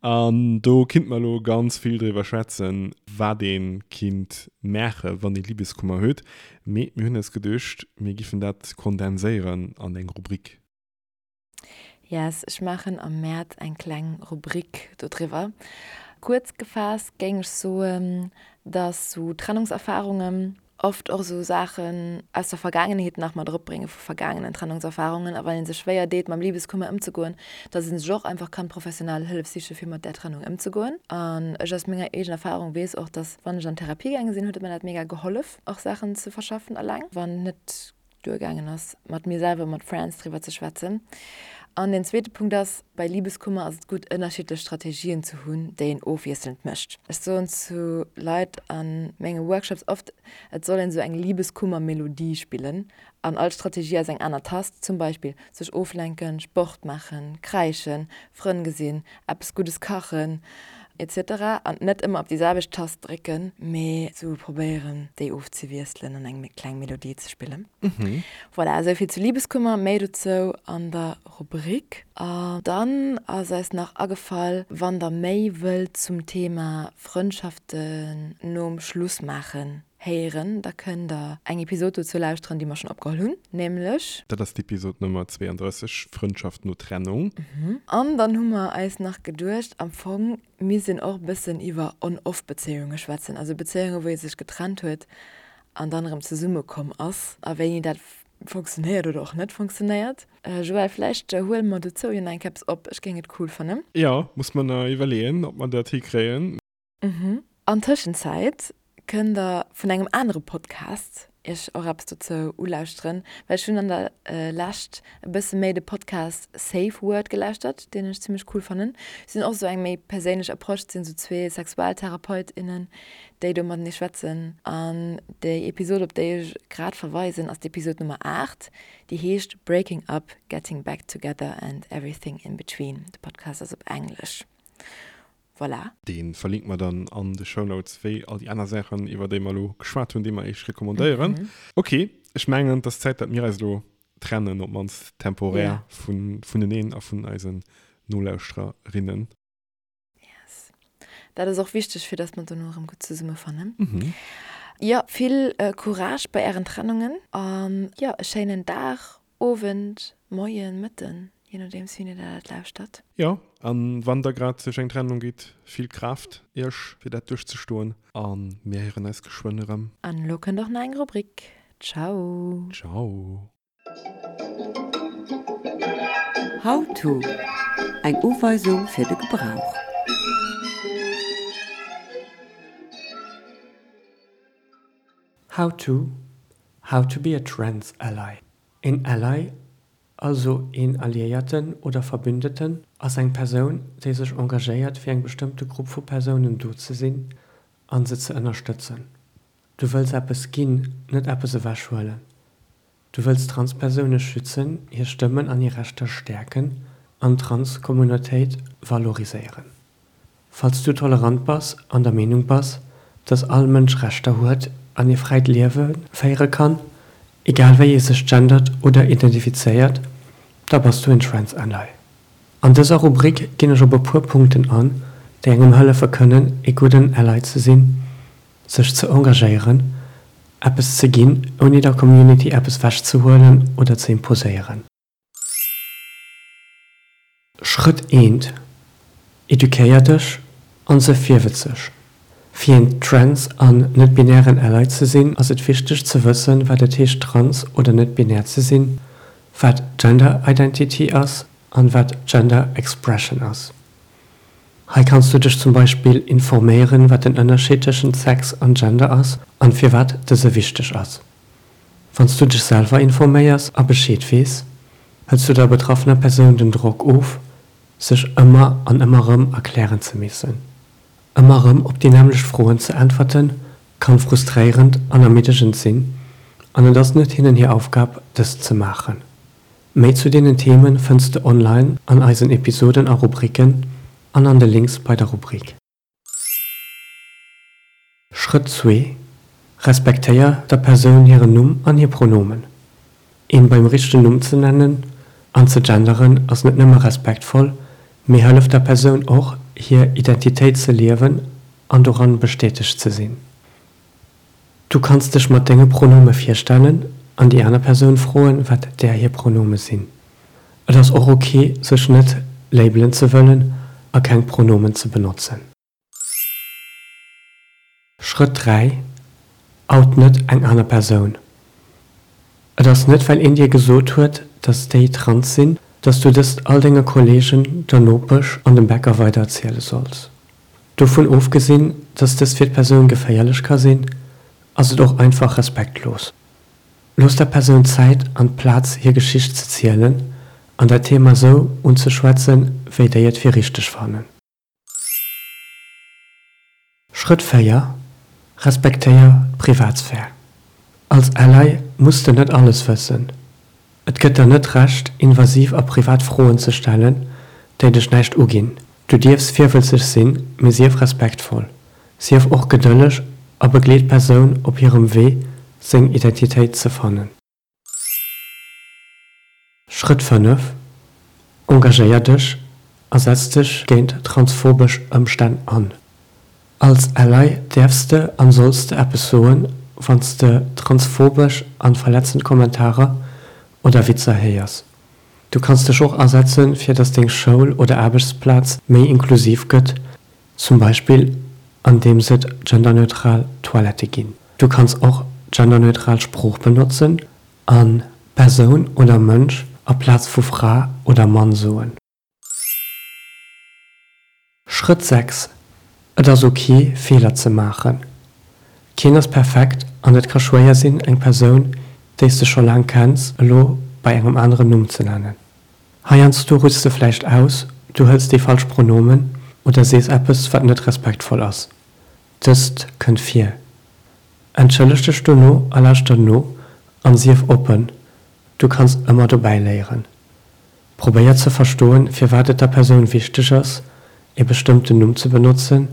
S1: An do kinnt mer elo ganz vill driwwer schwätzen, wat ee kinnt maache wann ee Liebeskummer huet. Mee mir hunn eis geduecht, mir giffen dat kondenséieren an eng Rubrik.
S2: Yes, ech maachen am Mäerz eng kleng Rubrik dodriwwer. Kuerz gefaasst géing ech soen, dass sou Trennungserfarungen oft och sou Saachen aus der Vergaangenheet nach mat eropbrénge vu vergaangenen Trennungserfarungen. A wann ee sech schwéier deet mam Libeskummer ëmzegoen, dass ee sech och einfach kann professionell Hëllef siche fir mat där Trennung ëmzegoen. An ech aus menger eegener Erfarung weess och, dass wann ech an Therapie gaange sinn, huet et mer dat mega gehollef och Saachen ze verschaffen eleng, wann net duergaangen ass, mat mir selwer, mat Friends driwwer ze schwätzen. An deen zweete Punkt ass, bei Libeskummer ass et gutt, ënnerschiddlech Strategien ze hunn, déi een ofwiesselnd mécht. Ech soen zu Leit a menge Workshops oft, et soll een esou eng Libeskummer-Melodie spillen an all Strategie ass eng aner Tast, zum Beispill sech oflenken, Sport maachen, kräischen, Frënn gesinn, eppes Guddes kachen. Etc. An net ëmmer op déi selwecht Tast drécken, mee sou probéieren déi ofzewiesselen an eng kleng Melodie ze spillen. Voilà, esou vill zu Liebeskummer, méi dozou an der Rubrik. An dann ass eis nach agefall, wann der méi wëllt zum Thema Frëndschaften nom Schluss maachen héieren, da kënnt der eng Episod dozou lauschteren, déi mer schonn opgeholl hunn, nämlech.
S1: Dat ass d'Episod Nummer 32, Frëndschaft no Trennung.
S2: An dann hu mer eis nach geduecht, am Fong misst een och e bëssen iwwer On-Off-Bezéiunge schwätzen, also Bezéiunge wou ee sech getrennt huet an dann erëm zesummekomm ass a wéini dat funktionéiert oder och net funktionéiert. Joël, vläicht huele mer dozou jo nach eng Kéier eppes op, ech géing et cool fannen.
S1: Jo, muss mer nach iwwerleeën, ob mer dat hikréien.
S2: An Tëschenzäit kënnt der vun engem anere Podcast iech och eppes dozou ulauschteren, well ech hunn an der Lescht e bësse méi de Podcast Safe Word gelauschtert, deen ech zimmlech cool fannen. Si hunn och esou eng méi perséinlech Approche, et sinn esou zwee Sexualtherapeutinnen, déi do matenee schwätzen. An déi Episod, op déi ech grad verweisen, ass d'Episod Nummer 8, déi heescht Breaking Up, Getting Back Together and Everything in Between. De Podcast ass op Englesch. Voilà.
S1: Dee verlinke mer dann an de Shownotes, wéi all déi aner Saachen, iwwer déi mer elo geschwat hunn, déi mer iech recommandéieren. Ok, ech mengen, et ass Zäit, datt mir eis elo trennen, op d'mannst temporär, vuneneen a vun eisen Nolauschtererinnen.
S2: Yes. Dat ass och wichteg, fir dass mer dono erëm gutt zesummefannen. Mhm. Jo, vill Courage bei ären Trennungen an jo, e schéinen Dag, Owend, Moien, Mëtten, je nodeems wéini der dat lauschtert.
S1: Jo, an wann der grad duerch eng Trennung gitt, vill Kraaft iech fir dat duerchzestoen an mir héieren eis geschwënn erëm.
S2: An elo kënnt och nach eng Rubrik. Ciao.
S1: Ciao.
S4: How to, Eng Uweisung fir de Gebrauch.
S5: How to, How to be a trans ally. Een Ally, also een Alliéierten oder Verbündeten, ass eng Persoun, déi sech engagéiert fir eng bestëmmte Grupp vu Persounen do ze sinn an se ze ënnerstëtzen. Du wëlls eppes ginn, net eppes ewechhuelen. Du wëlls Transpersoune schützen, hir Stëmmen an hir Rechter stäerken an d'Trans-Communautéit valoriséieren. Falls du tolerant bass an der Meenung bass, dass all Mënsch Rechter huet an ee fräit Liewe féiere kann, egal wéi ee sech gendert oder identifizéiert, da bass du en Trans-Ally. An dëser Rubrik ginn ech op e puer Punkten an, déi engem hëllefe kënnen, ee gudden Ally ze sinn, sech ze engagéieren, eppes ze ginn, ouni der Community eppes wechzehuelen oder ze imposéieren. Schrëtt eent, Eduquéier dech an se virwëtzeg. Fir een trans an net-binären Ally ze sinn, ass et wichteg ze wëssen, wat et heescht trans oder net-binär ze sinn, wat Gender Identity ass an wat Gender Expression ass. Hei kanns du dech zum Beispill informéieren, wat den Ënnerscheed tëschent Sex an Gender ass an firwat dëse wichteg ass. Wann s du dech selwer informéiers a Bescheed weess, hëls du der betraffener Persoun den Drock of, sech ëmmer an ëmmer rëm erklären ze missen. Ëmmer rëm op déi nämmlecht Froen ze äntwerten, kann frustréierend an ermiddegend sinn an et ass net hinnen hir Aufgab, dëst ze maachen. Méi zu deenen Themen fënns de online an eisen Episoden a Rubriken an an de Links bei der Rubrik. Schrëtt zwee, Respektéier der Persoun hiren Numm an hir Pronomen. Een beim richtegen Numm ze nennen an ze genderen ass net nëmme respektvoll, mee hëlleft der Persoun och, hir Identitéit ze liewen an doran bestätegt ze sinn. Du kanns dech mat denge Pronome virstellen an déi aner Persoun froen, wat där hir Pronome sinn. Et ass och ok, sech net labelen ze wëllen a keng Pronomen ze benotzen. Schrëtt 3, Out net eng aner Persoun. Et ass net well een dir gesot huet, dass déi trans sinn, dass du dëst all denge Kollegen, der Nopesch an dem Bäcker weidererziele solls. Dovun ofgesinn, dass dëst fir d'Persoun geféierlech ka sinn, ass et och einfach respektlos. Looss der Persoun d'Zäit an d'Plaz hir Geschicht ze zielen an dat Thema sou unzeschwätzen, wéi déi et fir richteg fannen. Schrëtt 4, Respektéier d'Privatsphär. Als Ally muss de net alles wëssen. Et gëtt der net d'Recht, invasiv a privat Froen ze stellen, déi dech näischt uginn. Du dierfs virwëtzeg sinn, mee sief respektvoll. Sief och gedëlleg a begleet d'Persoun op hirem Wee, seng Identitéit ze fannen. Schrëtt 5, Engagéier dech a setz dech géint transphobesch Ëmstänn an. Als Ally däerfs de an solls de eppes soen, wann s de transphobesch an verletzend Kommentarer oder Witzer héiers. Du kanns dech och asetzen, fir dass deng Schoul oder Aarbechtsplaz méi inklusiv gëtt, zum Beispill andeems et genderneutral Toilette ginn. Du kanns och genderneutral Sprooch benotzen an Persoun oder Mënsch aplaz vu Fra oder Mann soen. Schrëtt 6, Et ass ok, Feeler ze maachen. Keen ass perfekt an et ka schwéier sinn, eng Persoun, déi s de scho laang kenns, elo bei engem aneren Numm ze nennen. Heiansdo rutschs de vläicht aus, du hëls déi falsch Pronomen oder sees eppes, wat net respektvoll ass. Dëst kënnt vir. Entschëlleg dech dono a lauschter no an sief oppen, du kanns ëmmer dobäi léieren. Probéier ze verstoen, firwat et der Persoun wichteg ass, e bestëmmten Numm ze benotzen,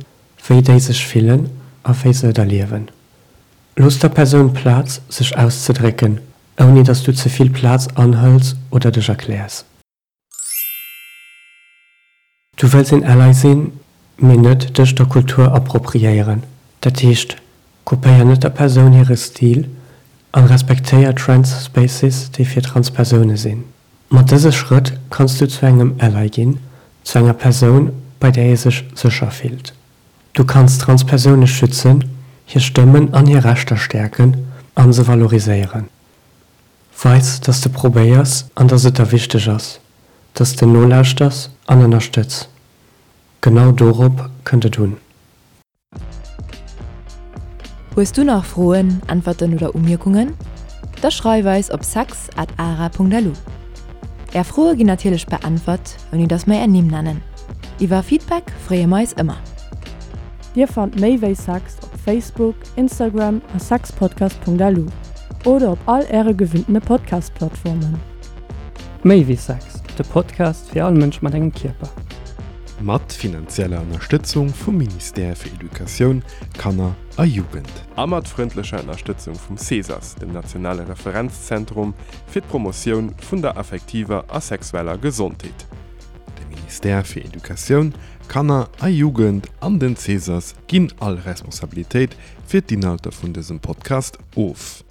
S5: wéi déi sech fillen a wéi se et erliewen. Looss der Persoun Plaz, sech auszedrécken, ouni dass du ze vill Plaz anhëls oder dech erkläers. Du wëlls een Ally sinn, mee net dech der Kultur appropriéieren. Dat heescht, kopéier net der Persoun hire Stil an respektéier Trans Spaces, déi fir trans Persoune sinn. Mat dëse Schrëtt kanns du zu engem Ally ginn, zu enger Persoun, bei där ee sech sécher fillt. Du kanns trans Persoune schützen, hir Stëmmen an hir Rechter stäerken an se valoriséieren. Weis, dass de probéiers an dass et der wichteg ass, dass de nolauschters an ënnerstëtz. Genau dorop kënnt et un.
S2: Hues du nach Froen, Äntwerten oder Umierkungen? Da schreif eis op sex at ara.lu. Är Froe ginn natierlech beäntwert, ouni dass mer är Nimm nennen. Iwwer Feedback freeë mer eis ëmmer.
S3: Dir fannt méi wéi Sex op Facebook, Instagram a sexpodcast.lu oder op all äre gewinntene Podcast-Plattformen.
S5: Méi wéi Sex, de Podcast fir all Mënsch mat engem Kierper.
S1: Mat finanzieller Ënnerstëtzung vum Ministère fir Educatioun, Kanner a Jugend.
S6: A mat frëndlecher Ënnerstëtzung vum CESAS, dem nationale Referenzzentrum fir d'Promotioun vun der affektiver a sexueller Gesondheet.
S1: De Ministère fir Educatioun, Kanner a Jugend an den CESAS ginn all Responsabilitéit fir d'Inhalter vun dësem Podcast of.